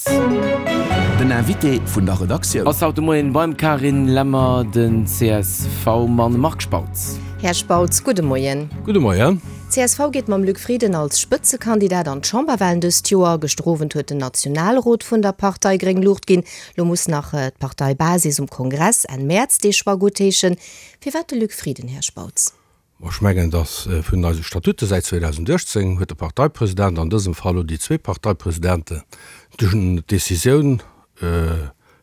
Spautz. Den Invité vun der Redaktioun. Ass haut de Moien beim Carine Lemmer den CSV-Mann Marc Spautz. Här Spautz, gudde Moien. Gudde Moien. Csv geet mam Luc Frieden als Spëtzekandidat an d'Chamberwahlen dëst Joer. Gëschter Owend huet den Nationalrot vun der Partei gréng Luucht ginn. Lo muss nach d'Parteibasis um Kongress Enn Mäerz dee Choix guttheeschen. Firwat de Luc Frieden, Här Spautz? Ech mengen, datt vun eise Statute säit 2018 huet de Parteipresident, an dësem Fall elo déi zwee Parteipresidenten, d'Decisioun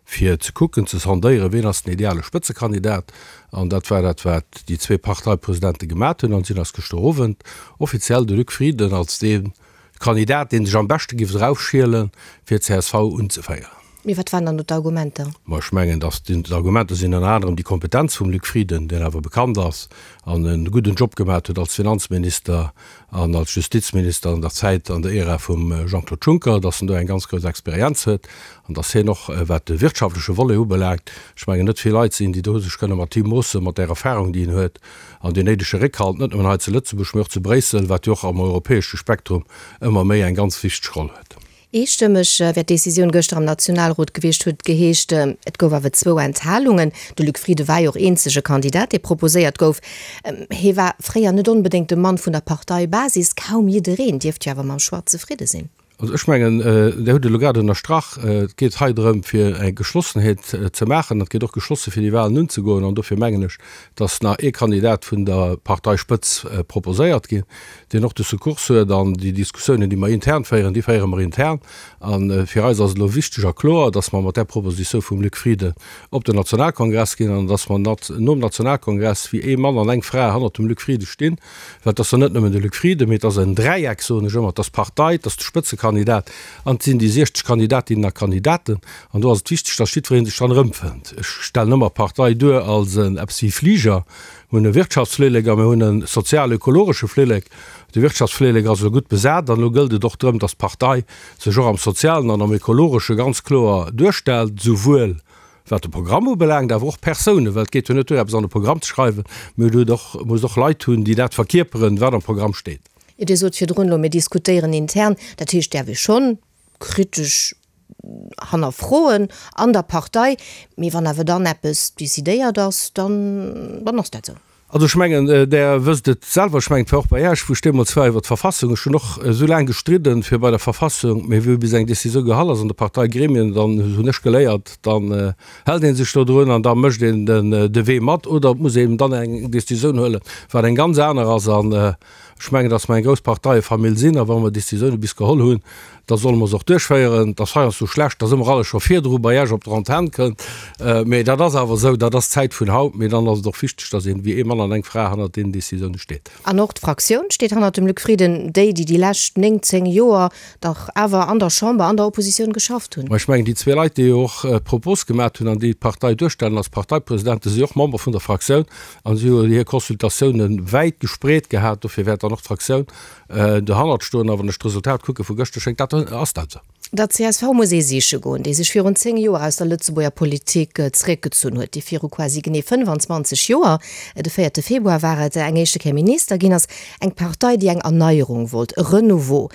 fir ze kucken, ze sondéieren, wien ass den ideale Spëtzekandidat. An dat war dat, wat déi zwee Parteipresidente gemat hunn. An si hunn eis gëschter Owend offiziell de Luc Frieden als dee Kandidat, dee sech am beschte giff eraufschielen, fir csv unzeféieren. Mee wat waren dann do d'Argumenter? Ma ech mengen, datt d'Argumenter sinn ënner anerem déi Kompetenz vum Luc Frieden, deen awer bekannt ass an e gudden Job gemat huet als Finanzminister an als Justizminister an der Zäit, an der Ära vum Jean-Claude Juncker, datt en do eng ganz grouss Experienz huet an datt hien och, wat de wirtschaftleche Volet ubelaangt, ech mengen, net vill Leit sinn, déi do sech kënne mat him moossen, mat där Erfahrung, déi en huet. An deen néidege Réckhalt, net nëmmen hei zu Lëtzebuerg, mee och zu Bréissel, wat jo och am europäesche Spektrum ëmmer méi eng ganz wichteg Roll huet. Eestëmmeg wär d'Decisioun gëschter am Nationalrot gewiescht, huet et geheescht. Et gouf awer zwou Enthalungen. De Luc Frieden war jo och eenzege Kandidat, dee proposéiert gouf. Hie war fréier net onbedéngt de Mann vun der Parteibasis. Kaum jiddereen dierft jo awer mam Choix zefridde sinn. Also ech mengen, Dir hutt et elo grad ënnerstrach, et geet hei drëm, fir eng Geschlossenheet ze maachen. Et geet och geschlosse fir déi Wahlen unzegoen. An dofir mengen ech, dass nach ee Kandidat vun der Parteispëtz proposéiert ginn, deen och de Secours huet. An déi Diskussiounen, déi mer intern féieren, déi féiere mer intern. A fir eis ass et elo wichteg a kloer, dass mer mat där Proposition vum Luc Frieden op den Nationalkongress ginn an dass mer nom Nationalkongress wéi ee Mann an eng Fra hannert dem Luc Frieden stinn. Well et ass jo net nëmmen de Luc Frieden, mee et ass en Dräieck, soen ech ëmmer, et ass d'Partei, et ass de Spëtzekandidat an et sinn déi 60 Kandidatinnen a Kandidaten. An do ass et wichteg, datt jiddweree sech dran erëmfënnt. Ech stellen ëmmer d'Partei duer als en eppes wéi Fliger. Mir hunn e Wirtschaftsflillek a mir hunn e sozial-ökologesche Flillek. De Wirtschaftsflillek ass elo gutt besat an elo gëllt et och drëm, datt d'Partei sech och am Sozialen an am Ökologesche ganz kloer duerstellt, souwuel Wat de Programm ubelaangt, awer och Persounen, well et geet jo net duer, eppes an de Programm ze schreiwen, mee et huet och, muss och Leit hunn, déi dat verkierperen, wat am Programm steet. Jo, Dir sot virdrun elo, mir diskutéieren intern. Dat heescht, däerf ee schonn kritesch hannerfroen an der Partei, mee wann awer dann eppes decidéiert ass, dann, dann ass dat esou. Also ech mengen, Der wësst et selwer, ech mengen, et war och bei Iech, wou ech deemools war iwwert d'Verfassung, ech hunn och esou laang gestridden, fir bei der Verfassung, mee wou bis eng Décisioun gehall ass an de Parteigremien, dann hunn ech geléiert, dann hält ee sech dodrun an da mécht een de Wee mat oder et muss een dann eng Décisioun huelen, wat eng ganz aner ass. An ech mengen, datt mer eng grouss Parteiefamill sinn a wa mer Décisioune bis geholl hunn, da solle mer se och duerchféieren. Et ass heiansdo schlecht, dass ëmmer alles scho virdru bei Iech op der Antenn kënnt, mee dat ass awer esou, dat ass d'Zäit vun haut. Mee dann ass et och wichteg, dass een wéi ee Mann an eng Fra hannert deenen Décisioune steet. An och d'Fraktioun steet hannert dem Luc Frieden, déi, déi déi lescht 9, 10 Joer dach awer an der Chamber, an der Oppositioun geschafft hunn. Ma ech mengen, déi zwee Leit, déi jo och d'Propos gemat hunn an déi d'Partei duerstellen als Parteipresidente, si och Member vun der Fraktioun a si hu hir Consultatioune wäit gespreet gehat. Dofir wäert dann och d'Fraktioun Dohannert stoen, a wann ech d'Resultat kucke vu gëschter, schéngt dat, ass dat esou. Der csv muss ee siche goen, déi sech virun 10 Joer aus der Lëtzebuerger Politik zeréckgezunn huet, déi viru quasi genee 25 Joer, de véierte Februar war et, eng éischte Kéier Minister ginn ass. Eng Partei, déi eng Erneierung wollt, e Renouveau.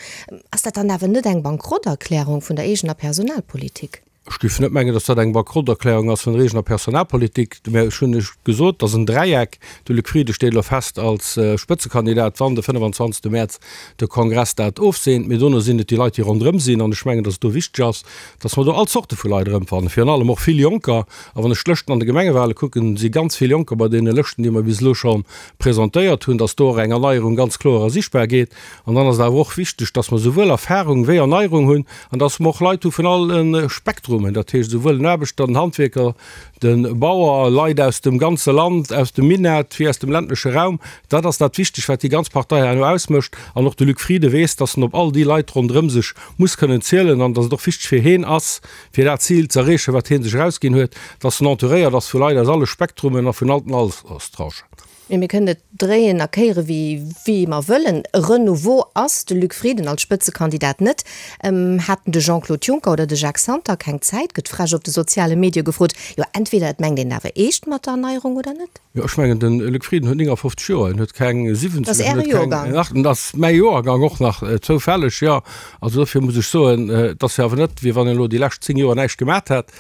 Ass dat dann awer net eng Bankrotterklärung vun der eegener Personalpolitik? Ech géif net mengen, datt dat eng Bankrotterklärung ass vun der eegener Personalpolitik, mä ech hunn lech gesot, et ass en Dräieck. De Luc Frieden steet elo fest als Spëtzekandidat, wann de 25. Mäerz de Kongress dat ofseent. Mee dono sinn et déi Leit, déi ronderëm sinn. An ech mengen, datt et do wichteg ass, datt mer do all Zorte vu Leit erëmfannen, virun allem och vill Jonker. A wann ech d'Lëschten an de Gemengewale kucken, si ganz vill Jonker bei deene Lëschten, déi mer bis elo scho presentéiert hunn, datt do och eng Erneierung ganz kloer ersichtbar gétt. An dann ass et awer och wichteg, dass mer souwuel Erfahrung wéi Erneierung hunn an dass mer och Leit hu vun alle Spektrumen, dat heescht esouwuel den Aarbechter, den Handwierker, de Bauer, Leit aus dem ganze Land, aus dem Minett wéi aus dem ländleche Raum. Dat ass dat Wichtegt, wat déi ganz Partei herno ausmécht. An och de Luc Frieden weess, dass en op all déi Leit ronderëm sech muss kënnen zielen an dass et och wichteg fir heen ass, fir dat Zil ze erreechen, wat hee sech erausginn huet, dass en entouréiert ass vu Leit aus alle Spektrumen a vun all den Alterstranchen. Mee mir kënnen et dréien a kéiere wéi mer wëllen, e Renouveau ass de Luc Frieden als Spëtzekandidat net. Haten de Jean-Claude Juncker oder de Jacques Santer keng Zäit, gëtt frech op de soziale Medie gefrot. Jo, entweder et mengt een awer eescht mat der Erneierung oder net. Jo, ech mengen, de Luc Frieden huet 59 Joer, en huet keng 70, Dat ass Äre Joergang. Dat ass mäi Joergang och nach, zoufälleg, jo. Also dofir muss ech soen, et ass jo awer net, wéi wann en elo déi lescht 10 Joer näischt gemat hätt.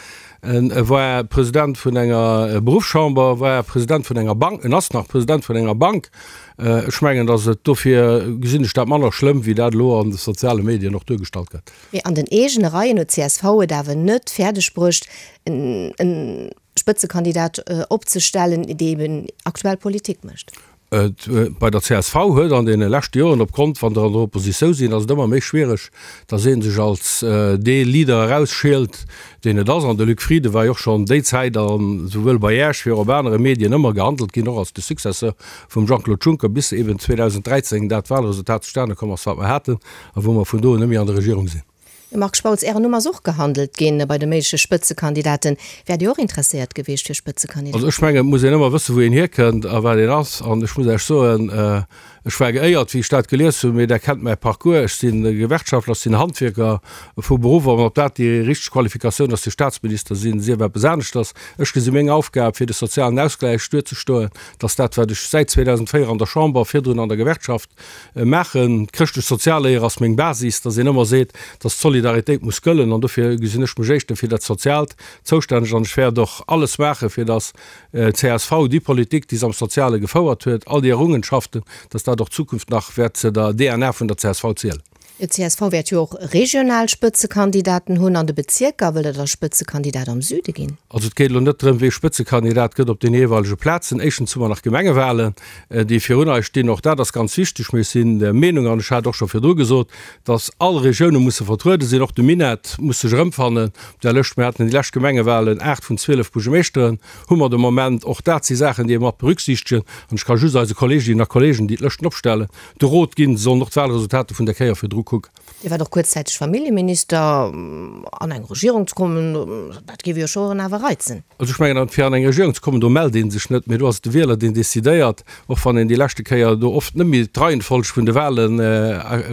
En war President vun enger Beruffschamber, war President vun enger Bank, en ass nach President vun enger Bank. Ech mengen, datt et dofir gesinn ech dat manner schlëmm, wéi dat elo an de soziale Medien och duergestallt gëtt. Mee an den eegene Reien huet csv et awer net fäerdeg bruecht, e Spëtzekandidat opzestellen, dee eben aktuell Politik mécht. Bei der csv huet an deene leschte Joren, opgrond wann der an der Oppositioun sinn, ass et ëmmer méi schwiereg, datt ee sech als dee Leader erausschielt, deen et ass. An de Luc Frieden war jo och schonn déi Zäit, a souwuel bei Iech wéi och op anere Medien, ëmmer gehandelt ginn, och als de Successeur vum Jean-Claude Juncker, bis eben 2013 dat Wahlresultat zustane komm ass, wat mer haten, a wou mer vun do un net méi an der Regierung sinn. Marc Spautz, Ären Numm ass och gehandelt ginn bei de méigleche Spëtzekandidaten. Wäert Dir och interesséiert gewiescht fir Spëtzekandidat? Also ech mengen, et muss een ëmmer wëssen, wou een hierkënnt a wat een ass. An ech muss Iech soen, ech war geéiert, wéi ech dat gelies hunn, mee Der kennt mäi Parcours, ech si Gewerkschaftler, ech sinn Handwierker vu Beruff. An ob dat déi richteg Qualifikatioun ass fir Staatsminister sinn, sief eppes aneschters. Ech gesi meng Aufgab, fir de sozialen Ausgläich duerzestoen, dass dat, wat ech säit 2004 an der Chamber, virdrun an der Gewerkschaft, maachen. D'chrëschtlech-sozial Léier ass meng Basis, dass een ëmmer seet, dass d'Solidaritéit muss gëllen an dofir gesinn ech mech éischter fir dat Soziaalt zoustänneg an ech wäert och alles maachen, fir dass csv déi Politik, déi se am Soziale gefouert huet, all déi Errungenschaften, dass dat och d'Zukunft nach wäert zu der DNA vun der csv zielen. D'CSV wäert jo och regional Spëtzekandidaten hunn an de Bezierker. Wëllt Der da Spëtzekandidat am Süde ginn? Also et geet elo net drëm, wee Spëtzekandidat gëtt op den jeeweilege Plazen. Éischtens hu mer nach Gemengewahlen, déi virun eis stinn. Och dat ass ganz wichteg. Mee ech sinn der Meenung, an ech hat och scho virdru gesot, datt all Regioune musse vertruede sinn. Och de Minett muss sech erëmfannen op där Lëscht. Mir haten déi lescht Gemengewahlen 8 vun 12 Buergermeeschteren hu mer de Moment. Och dat si Saachen, déi ee mat berücksichtegen. An ech ka just eise Kolleeginnen a Kolleegen, déi d'Lëschten opstellen, De Rot ginn, se sollen och d'Wahlresultater vun der Kéier virdru kucken. Dir waart och kuerzzäiteg Familljeminister. An eng Regierung ze kommen, dat géif jo scho awer reizen. Also ech mengen, fir an eng Regierung ze kommen, do mellt ee sech net, mee do ass et de Wieler, deen decidéiert, och wann een déi leschte Kéier do oft net méi d'Reihenfolg vun de Wahle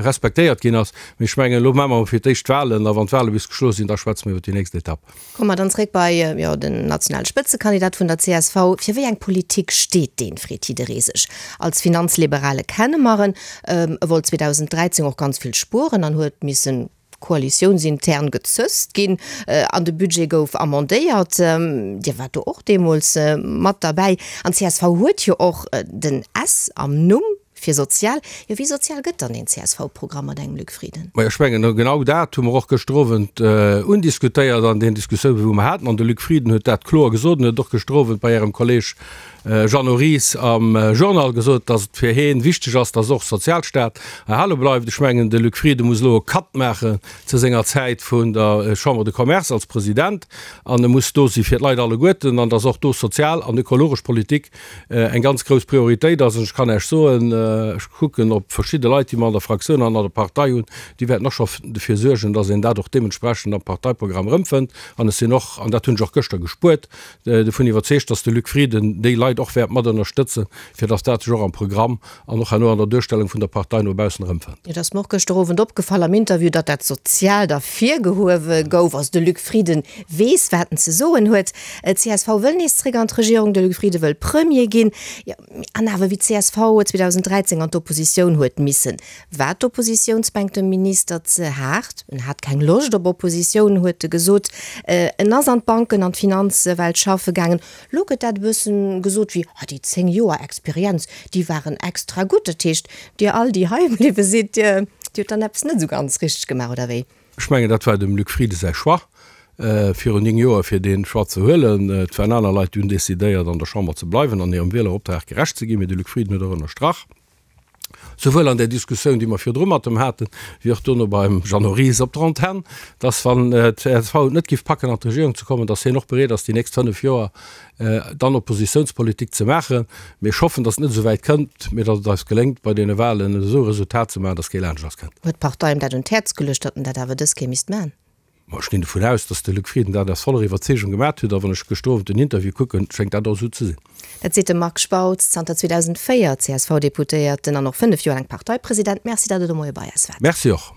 respektéiert ginn ass. Mee ech mengen, elo maache mer fir d'éischt d'Wahlen a wann d'Wahle bis geschloss sinn, da schwätze mer iwwer déi nächst Etapp. Komme mer dann zréck bei, jo, den nationale Spëtzekandidat vun der csv. Fir wéi eng Politik steet deen, freet jidderee sech. Als Finanzliberale kenne mer en. E wollt 2013 och ganz vill spueren an huet missen koalitiounsintern gezësst ginn an de Budget gouf amendéiert. Dir waart do och deemools mat derbäi. An csv huet jo och den S am Numm. Fir sozial? Jo, wéi sozial gëtt dann een CSV-Programm mat engem Luc Frieden? Majo, ech mengen, genau dat hu mer och gëschter Owend undiskutéiert an den Diskussiounen, wou mer haten. An de Luc Frieden huet dat kloer gesot en huet och gëschter Owend bei Ärem Kolleg Jeannot Ries am Journal gesot, datt et fir heen wichteg ass, datt och Sozialstaat erhale bleift. Ech mengen, de Luc Frieden muss elo e Cut maachen zu senger Zäit vun der Chambre de Commerce als President an e muss do si fir d'Leit alleguerten an datt och do sozial an ökologesch Politik eng ganz grouss Prioritéit ass. An ech kann Iech soen, ech kucken op verschidde Leit, déi mer an der Fraktioun an an der Partei hunn, déi wäerten och scho dofir suergen, dass een dat och deementsprechend am Parteiprogramm erëmfënnt. An ech sinn och, an dat hunn ech och gëschter gespuert, dovun iwwerzeegt, dass de Luc Frieden déi Leit och wäert mat ënnerstëtzen, fir dass dat sech och am Programm an och herno an der Duerstellung vun der Partei no baussen erëmfënnt. Et ass mer och gëschter Owend opgefall am Interview, datt dat Soziaalt ervirgehuewe gouf. Also de Luc Frieden weess, wat en ze soen huet. D'CSV wëll nees zréck an d'Regierung, de Luc Frieden wëll Premier ginn. Jo, an awer wéi d'CSV 2013 an d'Oppositioun huet missen, war d'Oppositiounsbänk dem Minister ze haart. En hat keng Loscht op Oppositioun, huet e gesot. En ass an d'Banken an d'Finanzwelt schaffe gaangen. Lo gëtt dat e bëssen gesot wéi, ah déi 10 Joer Experienz, déi waren extra gutt. Dat heescht, dir all, déi hei bliwwe sidd, dir hutt dann eppes net esou ganz richteg gemaach, oder wéi? Ech mengen, dat war dem Luc Frieden säi Choix virun 9 Joer, fir dee Choix ze huelen. Et waren aner Leit, déi hunn decidéiert, an der Chamber ze bleiwen an hirem Wieleroptrag gerecht ze ginn. Mee de Luc Frieden huet och ënnerstrach, souwuel an där Diskussioun, déi mer virdru mat em haten, wéi och dono beim Jeannot Ries op der Antenn, dass, wann d'CSV et net géif packen, an d'Regierung ze kommen, dass hien och bereet ass, déi nächst 5 Joer dann Oppositiounspolitik ze maachen. Mee ech hoffen, dass et net esou wäit kënnt, mee dass et eis geléngt, bei deene Wahlen esou e Resultat ze maachen, dass kee laanscht eis kënnt. Huet d'Partei em dat un d'Häerz geluecht, datt en dat awer dës Kéier misst maachen? Ma ech ginn dovun aus, datt de Luc Frieden dat aus voller Iwwerzeegung gemat huet, a wann ech gëschter Owend den Interview kucken, schéngt dat och esou ze sinn. Dat seet de Marc Spautz, zanter 2004 CSV-Deputéierten an och 5 Joer laang Parteipresident. Merci, datt Der de Moie bei eis waart. Merci och.